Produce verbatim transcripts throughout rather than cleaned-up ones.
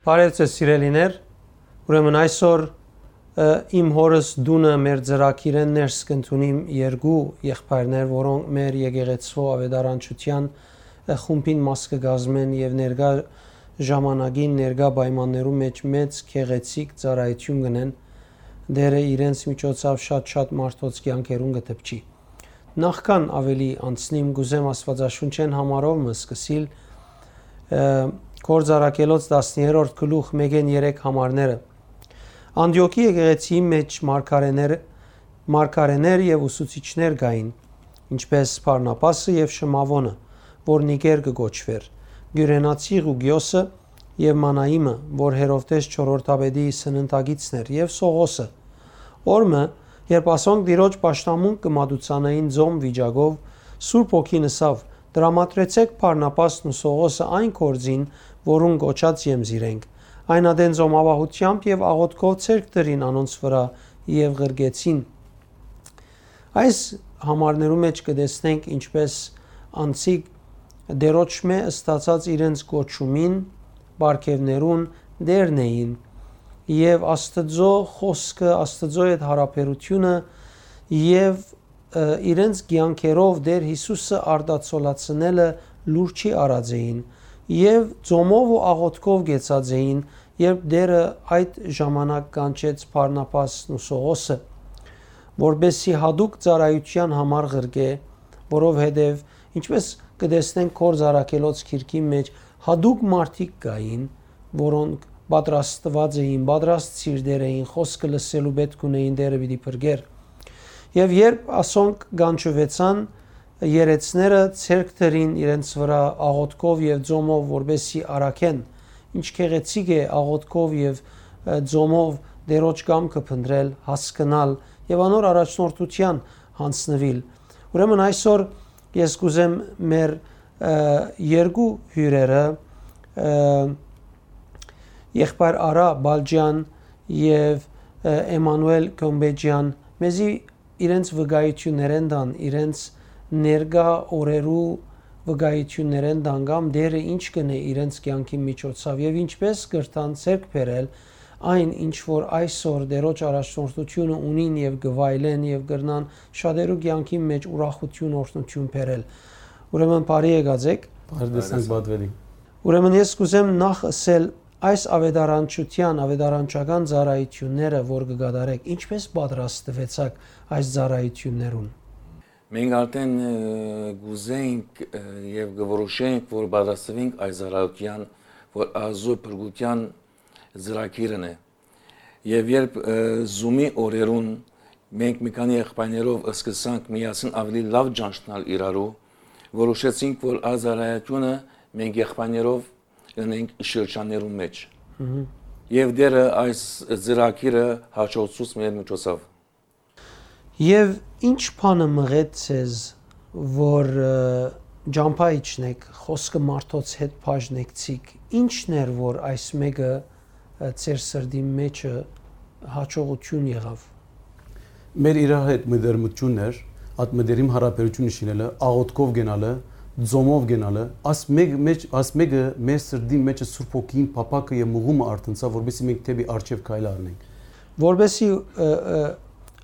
Բարեւ ձեզ, սիրելիներ։ Ուրեմն այսօր, ը, իմ հորս տունը մեր ծրագիրէն ներս կ'ընդունիմ երկու եղբայրներ, որոնք մեր եկեղեցւոյ աւետարանչութեան, ը, խումբին մաս կը կազմեն եւ ներկայ ժամանակին, ներկայ պայմաններու մէջ մեծ գեղեցիկ ծառայութիւն կ'ընեն։ Տէրը իրենց միջոցաւ շատ-շատ մարդոց կեանքերուն կը դպչի։ Նախքան աւելի անցնիմ, կ'ուզեմ Աստուածաշունչէն համարով մը սկսիլ, ը, Գործառաքելոց տասներորդ գլուխ մէկէն երեք համարները։ Անտիոքի եկեղեցիի մէջ մարգարէներ, մարգարէներ եւ ուսուցիչներ կային, ինչպէս Բարնաբասը եւ Շմաւոնը, որ Նիկեր կը կոչուէր, Կիւրենացի Ղուկիոսը եւ Մանայիմը, որ Հերովդէս չորրորդապետի սննդակիցն էր, եւ Սողոսը։ Օր մը, երբ ասոնք Տիրոջ պաշտամունք կը մատուցանային ձոմ վիճակով, Սուրբ Հոգին ըսաւ. «Տրամադրեցէք Բարնաբասն ու Սողոսը այն գործին, որուն կոչած եմ զիրենք»։ Այն ատեն ձոմապահութեամբ եւ աղօթքով ձեռք դրին անոնց վրայ եւ ղրկեցին։ Այս համարներու մէջ կը տեսնենք, ինչպէս անցիկ Տիրոջմէ ստացած իրենց կոչումին պարգեւներուն տէրն էին եւ Աստուծոյ խօսքը, Աստուծոյ հետ յարաբերութիւնը եւ, ը, իրենց կեանքերով Տէր Յիսուսը արտացոլացնելը լուր չի առած էին եւ ծոմով ու աղօթքով կեցած էին, երբ Տէրը այդ ժամանակ կանչեց Բարնաբասն ու Սողոսը, որպեսզի յատուկ ծառայութեան համար ղրկէ, որովհետեւ, ինչպէս կը տեսնենք Գործառաքելոց գիրքին մէջ, յատուկ մարդիկ կային, որոնք պատրաստուած էին, պատրաստ սիրտեր էին, խօսքը լսելու պէտք ունէին, Տէրը պիտի փրկէր։ Եւ երբ ասոնք կանչուեցան, երեցները ձեռք դրին իրենց վրայ աղօթքով եւ ծոմով, որպեսզի առաքեն։ Ինչ գեղեցիկ է աղօթքով եւ, ը, ծոմով Տիրոջ կամքը փնտռել, հասկնալ եւ անոր առաջնորդութեան յանձնուիլ։ Ուրեմն այսօր ես կ'ուզեմ մեր, ը, երկու հիւրերը, ը, եղբայր Արա Բալճեան եւ, ը, Էմանուել Կոմբեջեան, մեզի իրենց վկայութիւններէն տան, իրենց ներկայ օրերու վկայութիւններէն տան կամ Տէրը ինչ կ'ընէ իրենց կեանքին միջոցաւ եւ ինչպէս կրնան ձեռք բերել այն, ինչ որ այսօր Տիրոջ առաջնորդութիւնը ունին եւ կը վայելեն եւ կրնան շատերու կեանքին մէջ ուրախութիւն, օրհնութիւն բերել։ Ուրեմն բարի եկած էք։ Բարի տեսանք, պատուելի։ Ուրեմն ես կ'ուզեմ նախ ըսել այս աւետարանչութեան, աւետարանչական ծառայութիւնները, որ կը կատարէք, ինչպէս պատրաստուեցաք այս ծառայութիւններուն։ Մենք արդեն, ը, կ'ուզենք, ը, եւ կը որոշենք, որ պատրաստուենք այս ծառայութեան, որ Աստուծոյ փրկութեան ծրագիրն է։ Եւ երբ, ը, Zoom-ի օրերուն մենք մի քանի եղբայրներով սկսանք միասին ավելի լաւ ճանչնալ իրարու, որոշեցինք, որ այս ծառայութիւնը մենք եղբայրներով ընենք շրջաններուն մէջ։ Մհմ։ Եւ Տէրը այս ծրագիրը հաջողցուց մեր միջոցով։ Եւ ինչ բանը մղեց ձեզ, որ, ը, ճամբայ իջնեք, խօսքը մարդոց հետ բաժնեցիք, ի՞նչն էր, որ այս մէկը, ը, ձեր սրտին մէջը հաջողութիւն եղաւ։ Մեր իրար հետ մտերմութիւնն էր, այդ մտերիմ յարաբերութիւնը շինելը, աղօթքով գնալը, ծոմով գնալը, աս մէկ-, մէջ-, աս մէկը մեր սրտին մէջը Սուրբ Հոգին փափաքը եւ մղումը արթնցաւ, որպեսզի մենք դէպի առջեւ քայլ առնենք։ Որպեսզի, ը, ը,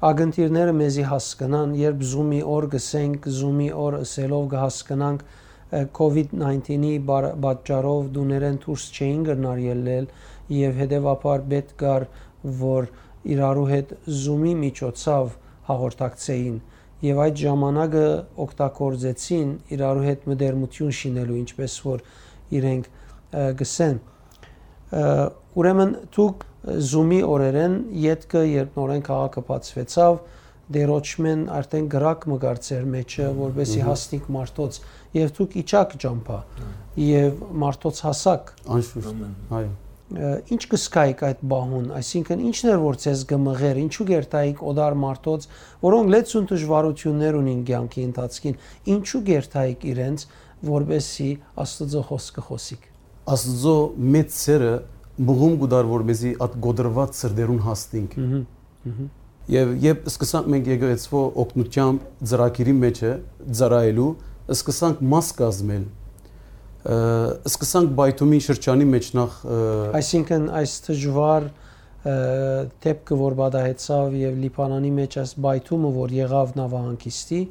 ակնթիռները մեզի հասկնան, երբ Zoom-ի օր գսենք, Zoom-ի օր ըսելով կը հասկնանք, ը, COVID nineteen-ի բար-, պատճառով տուներէն դուրս չէին կրնար ելլել եւ հետեւաբար պէտք կար, որ իրարու հետ Zoom-ի միջոցաւ հաղորդակցէին եւ այդ ժամանակը օգտագործեցին իրարու հետ մտերմութիւն շինելու, ինչպէս որ իրենք, ը, գսեն։ Ը, ուրեմն դուք Zoom-ի օրերէն ետքը, երբ նորէն քաղաքը բացուեցաւ, Տիրոջմէն արդեն կրակ մը կար ձեր մէջը, որպեսզի Մհմ։ Հասնիք մարդոց, եւ դուք իջաք ճամբայ, Այո։ Եւ մարդոց հասաք։ Անշուշտ, Ամեն։ Այո։ Ը, ինչ կ'զգայիք այդ պահուն, այսինքն ի՞նչն էր, որ ձեզ կը մղէր, ինչու կ'երթայիք օտար մարդոց, որոնք լեցուն դժվարութիւններ ունին կեանքի ընթացքին, ինչու կ'երթայիք իրենց, որպեսզի Աստուծոյ խօսքը խօսիք։ Աստուծոյ մեծ սէրը մղում կու տար, որ մեզի այդ կոտրուած սրտերուն հասնենք։ Մհմ, մհմ։ Եւ երբ սկսանք մենք եկեղեցւոյ օգնութեամբ ծրագիրի մէջը ծառայելու, սկսանք մաս կազմել, Ը, սկսանք պայթումի շրջանի մեջ նախ, ը, Այսինքն այս դժուար, ը, դեպքը, որ պատահեցաւ եւ Լիբանանի մեջ այս պայթումը, որ եղաւ նաւահանգիստի,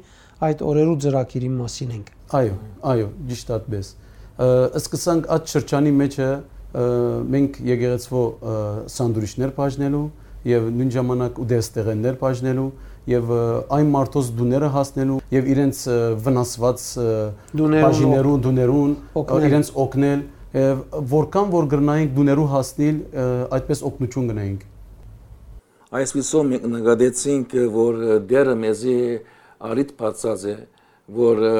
այդ օրերու ծրագիրին մասին ենք։ Այո, այո, ճիշտ այդպես։ Ը, սկսանք այդ շրջանի մեջը, ը, մենք եկեղեցվո, ը, սանդուիչներ բաժնելու եւ նոյն ժամանակ ուտեստեղեններ բաժնելու եւ, ը, այն մարդոց տուները հասնելու եւ իրենց, ը, վնասված, ը, Տուներուն բաժիներուն, տուներուն, ը, օգնել։ իրենց օգնել, ը, որքան որ կրնայինք տուներու հասնիլ, ը, այդպես օգնություն կնայինք։ Այսպիսով մենք նկատեցինք, որ Տէրը մեզի առիթ բացած է, որ, ը,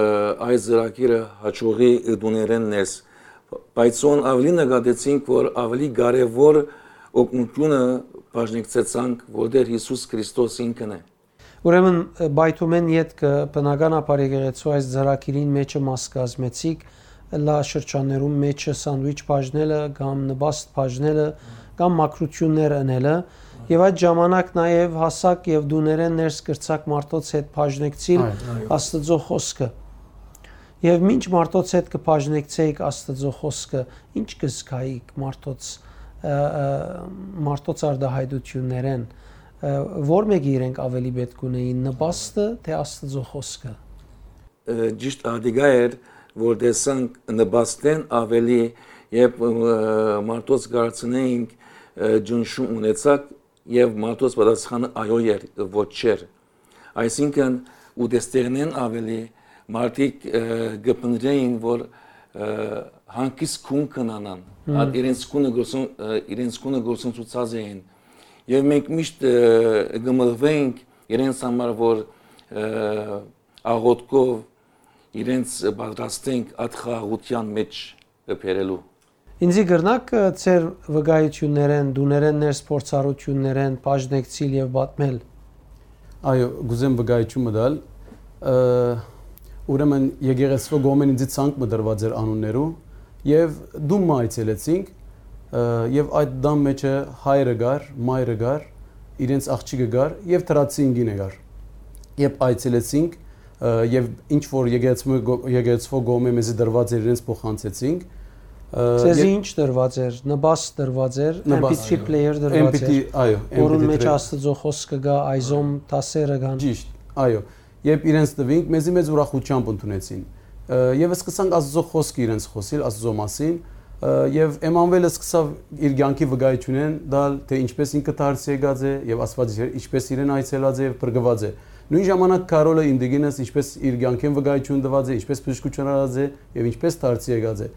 այս ծրագիրը հաջողի տուներէն ներս, բայց ուն աւելի նկատեցինք, որ աւելի կարեւոր օգնությունը բաժնեկցեցանք, որ Տէր Յիսուս Քրիստոս ինքն է։ Ուրեմն, պայթումէն ետքը բնականաբար եկեղեցու այս ծրագիրին մեջը մաս կազմեցիք, լա շրջաններուն մեջը սանդուիչ բաժնելը կամ նպաստ բաժնելը կամ մաքրութիւններ ընելը, եւ այդ ժամանակ նաեւ հասակ եւ տուներէն ներս կրցակ մարդոց հետ բաժնեկցիլ Այո, այո։ Աստուծոյ խօսքը։ Եւ մինչ մարդոց հետ կը բաժնեկցէիք Աստուծոյ խօսքը, ի՞նչ կը զգայիք մարդոց, ը, ը, մարդոց արտահայտություններէն, ը, ո՞ր մէկը իրենք աւելի պէտք ունէին, նպաստը թէ Աստուծոյ խօսքը։ Ը, ճիշտ ատիկա էր, որ տեսանք նպաստէն աւելի, երբ, ը, մարդոց կ'արցնէինք, ը, ճնշում ունեցաք, եւ մարդոց պատասխանը այո էր, ոչ չէր։ Այսինքն, ուտեստեղենէն աւելի մարդիկ, ը, կը փնտռէին, որ, ը, հանգիստ գուն կ'ունենան, Հմ։ այդ իրենց գունը գործուն-, ը, իրենց գունը գործընծուցած էին։ Եւ մենք միշտ, ը, կը մղուէինք իրենց համար, որ, ը, աղօթքով իրենց պատրաստենք այդ խաղաղութեան մեջ բերելու։ Ինձի կրնա՞ք, ը, ձեր վկայություններէն, տուներէն ներս փորձառութիւններէն բաժնեկցիլ եւ պատմել։ Այո, կ'ուզեմ վկայություն մը տալ։ Ը, ուրեմն եկեղեցւոյ կողմէն ինձի ցանկ մը տրուած էր անուններու, եւ տուն մը այցելեցինք, ը, եւ այդ տան մեջը հայրը կար, մայրը կար, իրենց աղջիկը կար եւ թրացին կինը կար։ Երբ այցելեցինք, ը, եւ ինչ որ եկեղեցու-, եկեղեցուոյ կողմէ մեզի տրուած էր, իրենց փոխանցեցինք, ը, Ձեզի եւ ինչ տրուած էր, նպաստ տրուած էր, Նպաստ։ M P three player տրուած M P three, էր, այո, որուն M P three մեջ player։ Աստուծոյ խօսքը կայ, այզոմ դասերը կան։ Ճիշտ, այո։ Երբ իրենց տուինք, մեզի մեծ ուրախութեամբ ընդունեցին։ Ը, եւ սկսանք Աստուծոյ խօսքը իրենց խօսիլ, Աստուծոյ մասին, ը, եւ Էմանուէլը սկսաւ իր կեանքի վկայությունէն տալ, թէ ինչպէս ինքը դարձի եկած է եւ Աստուած ինչպէս իրեն այցելած է եւ փրկուած է։ Նոյն ժամանակ Քարոլը իմ տիկինս ինչպէս իր կեանքէն վկայություն տուած է, ինչպէս բժշկութիւն առած է եւ ինչպէս դարձի եկած է։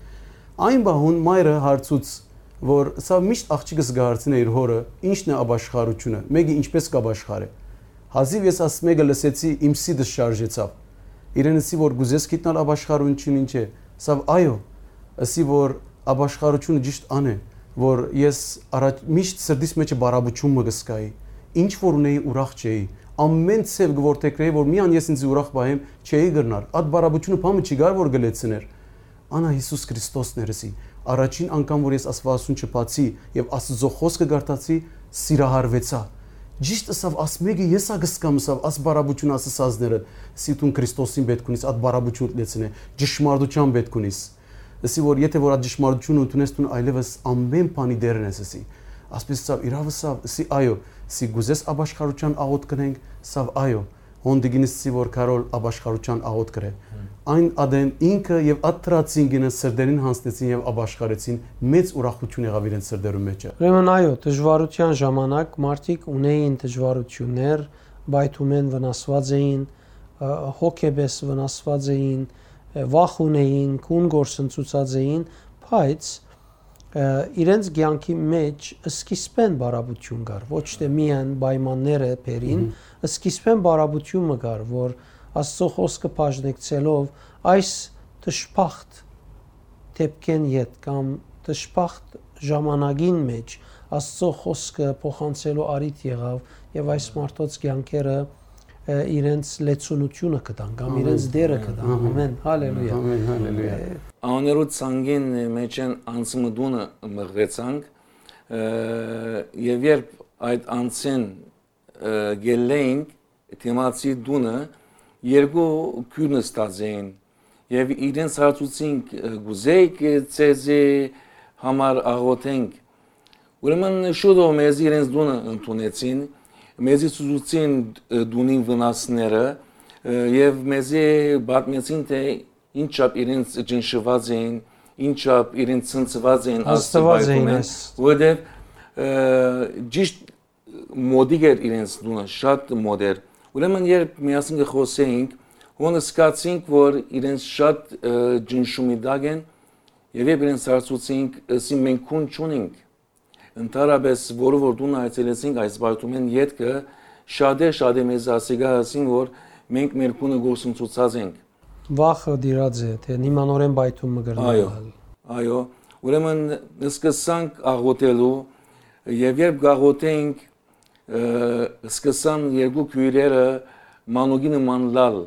Այն պահուն մայրը հարցուց, որ սա միշտ աղջիկս կը հարցնէ իր հօրը, ինչն է ապաշխարութիւնը, մէկը ինչպէս կ'ապաշխարէ։ Հազիւ ես ասմէկը լսեցի, իմ սիրտս շարժեցաւ։ Իրեն ըսի, որ կ'ուզես գիտնալ ապաշխարութիւնը ինչ է, սա այո, ըսի, որ ապաշխարութիւնը ճիշտ ան է, որ ես առաջ, միշտ սրտիս մեջը բարապություն մը կ'զգայի, ինչ որ ունեի, ուրախ չէի, ամեն ձեւ կ'որթեգրէի, որ միան ես ինձ ուրախ պահեմ, չէի կրնար, այդ բարապությունը բան մը չի կար, որ կը լեցնէր։ Անա Յիսուս Քրիստոսն էր, ըսի, առաջին անգամ, որ ես Աստուածասունչը բացի եւ Աստուծոյ խօսքը կարդացի, սիրահարուեցայ։ Ճիշտ ըսաւ, ասմէկը ես ա կ'զգամ, ըսավ, աս բարապությունը ասացածները, ըսի, դուն Քրիստոսին պէտք ունիս, այդ բարապությունը լեցնե, ճշմարտութեան պէտք ունիս։ Ըսի, որ եթե որ այդ ճշմարտությունը ընդունես, դուն այլեւս ամեն բանի դերն ես, ըսի։ Ասպէս ըսաւ, իրաւ ըսաւ, ըսի, այո, ըսի, կ'ուզես ապաշխարութեան աղօթք կ'ընենք, ըսաւ, այո, հոն տիկինս ըսի, որ Քարոլ ապաշխարութեան աղօթք կրէ։ Հմ։ Այն ադեն ինքը եւ այդ թրացին կինը սրտերին յանձնեցին եւ ապաշխարեցին, մեծ ուրախութիւն եղաւ իրենց սրտերուն մեջը։ Ուրեմն, այո, դժուարութեան ժամանակ մարդիկ ունեին դժուարութիւններ, պայթումէն վնասուած էին, ը, հոգեպէս վնասուած էին, ը, վախ ունեին, գուն գործընծուցած էին, բայց, ը, իրենց կեանքի մեջ սկիզբէն բարապություն կար, ոչ թէ միայն պայմանները բերին, Մհմ։ Սկիզբէն բարապություն մը կար, որ Աստծո խօսքը բաժնեկցելով այս դժբախտ դեպքէն յետ կամ դժբախտ ժամանակին մեջ Աստծո խօսքը փոխանցելու առիթ եղավ եւ այս մարդոց կեանքերը, ը, իրենց լեցունությունը կտան կամ Ամեն։ իրենց դերը կտան։ Ամեն։ Ամեն, հալելույա։ Ամեն, հալելույա։ Ը, Անոներու ցանկին մեջ են անցմտունը մղվեցանք, ը, եւ երբ այդ անցեն, ը, գելլեինք դիմացի տունը, երկու քիւր նստած էին, Եւ իրենց հարցուցինք, «Կ'ուզէիք, ը, ձեզի համար աղօթենք»։ Ուրեմն շուտով մեզի իրենց տունը ընդունեցին, մեզի ցուցուցին, ը, տունին վնասները, ը, եւ մեզի պատմեցին, թէ ինչչափ իրենց ճնշուած էին, ինչչափ իրենց ցնցուած էին Աստուծոյ Հաստատուած էին պայթումէն, այս որովհետեւ, ը, ճիշտ մօտիկ էր իրենց տունը, շատ մօտ էր։ Ուրեմն երբ միասին կը խօսէինք, հոն զգացինք, որ իրենց շատ, ը, ճնշումի տակ են, եւ երբ իրենց հարցուցինք, ըսին, «Մենք քուն չունինք»։ Ընդհանրապէս որով որ տունը այցելեցինք այս պայթումէն ետքը, շատեր, շատեր մեզ ասիկա ըսին, որ մենք մեր քունը գործընծուցած ենք։ Վախը դիրած է, թէ հիմա նորէն պայթում մը կրնայ Այո, ալ։ Այո։ Ուրեմն սկսանք աղոթելու, եւ երբ կաղոթենք, ը, սկսան երկու քոյրերը մանուկի նման լալ։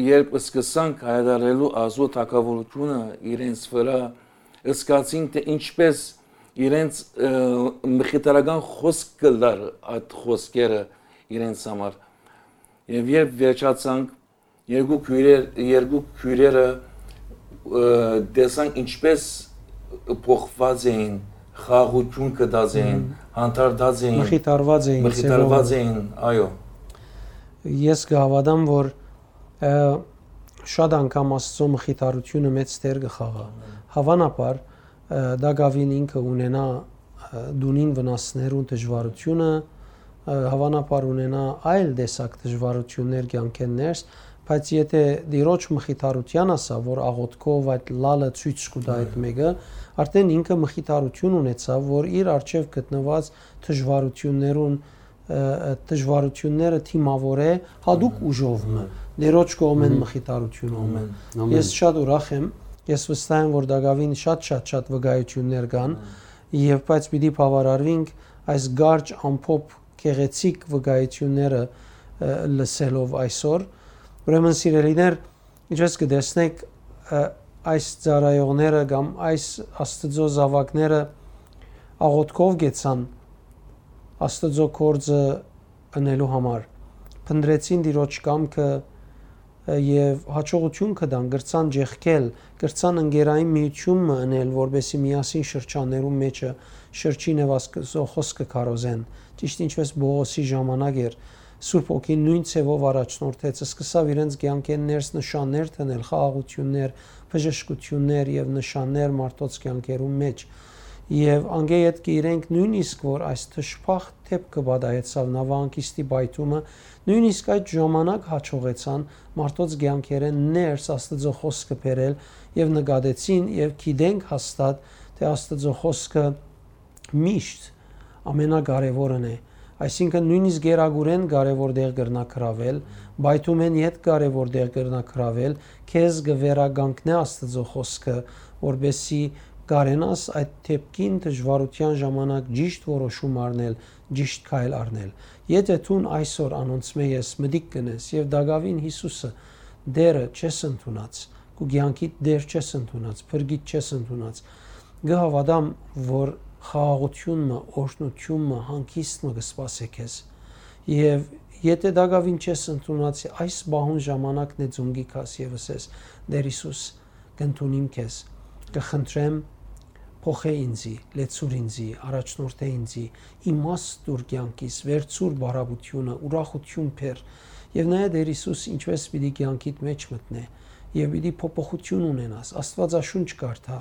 Երբ սկսանք հայտարարելու Աստուծոյ թագաւորութիւնը իրենց վրայ, զգացին, թէ ինչպէս իրենց, ը, մխիթարական խօսք կը լար այդ խօսքերը իրենց համար։ Եւ երբ վերջացանք, երկու քոյրեր-, երկու քոյրերը, ը, տեսանք ինչպէս փոխուած էին, խաղաղութիւն գտած էին, Մհմ։ հանդարտած էին, Մխիթարված էին, մխիթարված ձևով։ էին, այո։ Ես կհաւատամ, որ, ը, շատ անգամ Աստուծոյ մխիթարութիւնը մեծ դեր կը խաղայ։ Ամեն։ Հաւանաբար, ը, տակաւին ինքը ունենայ, ը, տունին վնասներուն դժուարութիւնը, ը, հաւանաբար ունենայ այլ տեսակ դժուարութիւններ կեանքէն ներս, բայց եթէ Տիրոջ մխիթարութեան ասաւ, որ աղօթքով այդ լալը ցոյց կու տայ այդ Այո։ մէկը, արդեն ինքը մխիթարութիւն ունեցաւ, որ իր առջեւ գտնուած դժուարութիւններուն, ը, ը, դժուարութիւնները դիմաւորէ յատուկ Ամեն։ ուժով մը, Ամեն։ Տիրոջ կողմէն Մհմ։ մխիթարութիւնով մը։ Ամեն։ Ամեն։ Ես շատ ուրախ եմ, ես վստահ եմ, որ տակաւին շատ, շատ, շատ վկայութիւններ կան, Ամեն։ եւ բայց պիտի բաւարարուինք այս կարճ, ամփոփ, գեղեցիկ վկայութիւնները, ը, լսելով այսօր։ Ուրեմն, սիրելիներ, ինչպես կը տեսնէք, ը, այս ծառայողները կամ այս Աստուծոյ զաւակները աղօթքով գեցան Աստուծոյ գործը ընելու համար, փնտռեցին Տիրոջ կամքը, ը, եւ յաջողութիւն կը տան, կրցան ջեղկել, կրցան ընկերային միութիւն մը ընել, որպէսզի միասին շրջաններուն մէջը շրջին եւ Աստուծոյ խօսքը քարոզեն, ճիշտ ինչպես Պողոսի ժամանակ էր, Սուրբ Հոգին նոյն ձեւով առաջնորդեց, սկսաւ իրենց կեանքէն ներս նշաններ դնել, խաղաղութիւններ, բժշկութիւններ եւ նշաններ մարդոց կեանքերուն մէջ։ Եւ անկէ ետքը իրենք նոյնիսկ որ այս դժբախտ դէպքը պատահեցաւ, Նավահանգիստի պայթումը, նոյնիսկ այդ ժամանակ յաջողեցան մարդոց կեանքերէն ներս Աստուծոյ խօսքը բերել եւ նկատեցին եւ գիտենք հաստատ, թէ Աստուծոյ խօսքը միշտ ամենակարեւորն է, այսինքն նոյնիսկ գերագուրէն կարեւոր տեղ կրնայ գրաւել, պայթումէն յետ կարեւոր տեղ կրնայ գրաւել, քեզ կը վերականգնէ Աստուծոյ խօսքը, որպէսզի կարենաս այդ դէպքին դժուարութեան ժամանակ ճիշտ որոշում առնել, ճիշտ քայլ առնել։ Եթէ դուն այսօր անոնցմէ ես մտիկ կ'ընես եւ տակաւին Յիսուսը Տէրը չես ընդունած, քու կեանքիդ Տէր չես ընդունած, փրկիչ չես ընդունած, կը հաւատամ, որ խաղաղութիւն մը, օրհնութիւն մը, հանգիստ մը կը սպասէ քեզ։ Եւ եթէ տակաւին չես ընդունած, այս պահուն ժամանակն է ծունկի քաս եւ ըսես. «Տէր Յիսուս, կ'ընդունիմ քեզ, կը խնդրեմ, փոխէ ինձի, լեցուր ինձի, առաջնորդէ ինձի, իմաստ տուր կեանքիս, վերցուր բարապությունը, ուրախութիւն բեր»։ Եւ նայ, Տէր Յիսուս ինչպէս պիտի կեանքիդ մէջ մտնէ եւ պիտի փոփոխութիւն ունենաս, Աստուածաշունչ կարդա,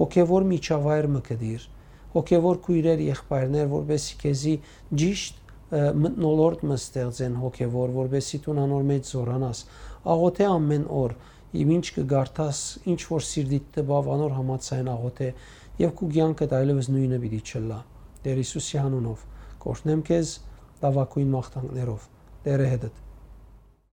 հոգեւոր միջավայր մը գտիր, հոգեւոր քոյրեր, եղբայրներ, որպէսզի քեզի ճիշտ, ը, մթնոլորտ մը ստեղծեն հոգեվոր, որպէսզի դուն անոր մէջ զօրանաս։ Աղօթէ ամէն օր, եւ ինչ կը կարդաս, ինչ որ սիրտիդ տպաւ, անոր համաձայն աղօթէ, եւ քու կեանքդ այլեւս նոյնը պիտի չըլլայ։ Տէր Յիսուսի անունով կ'օրհնեմ քեզ, լաւագոյն մաղթանքներով, Տէրը հետդ։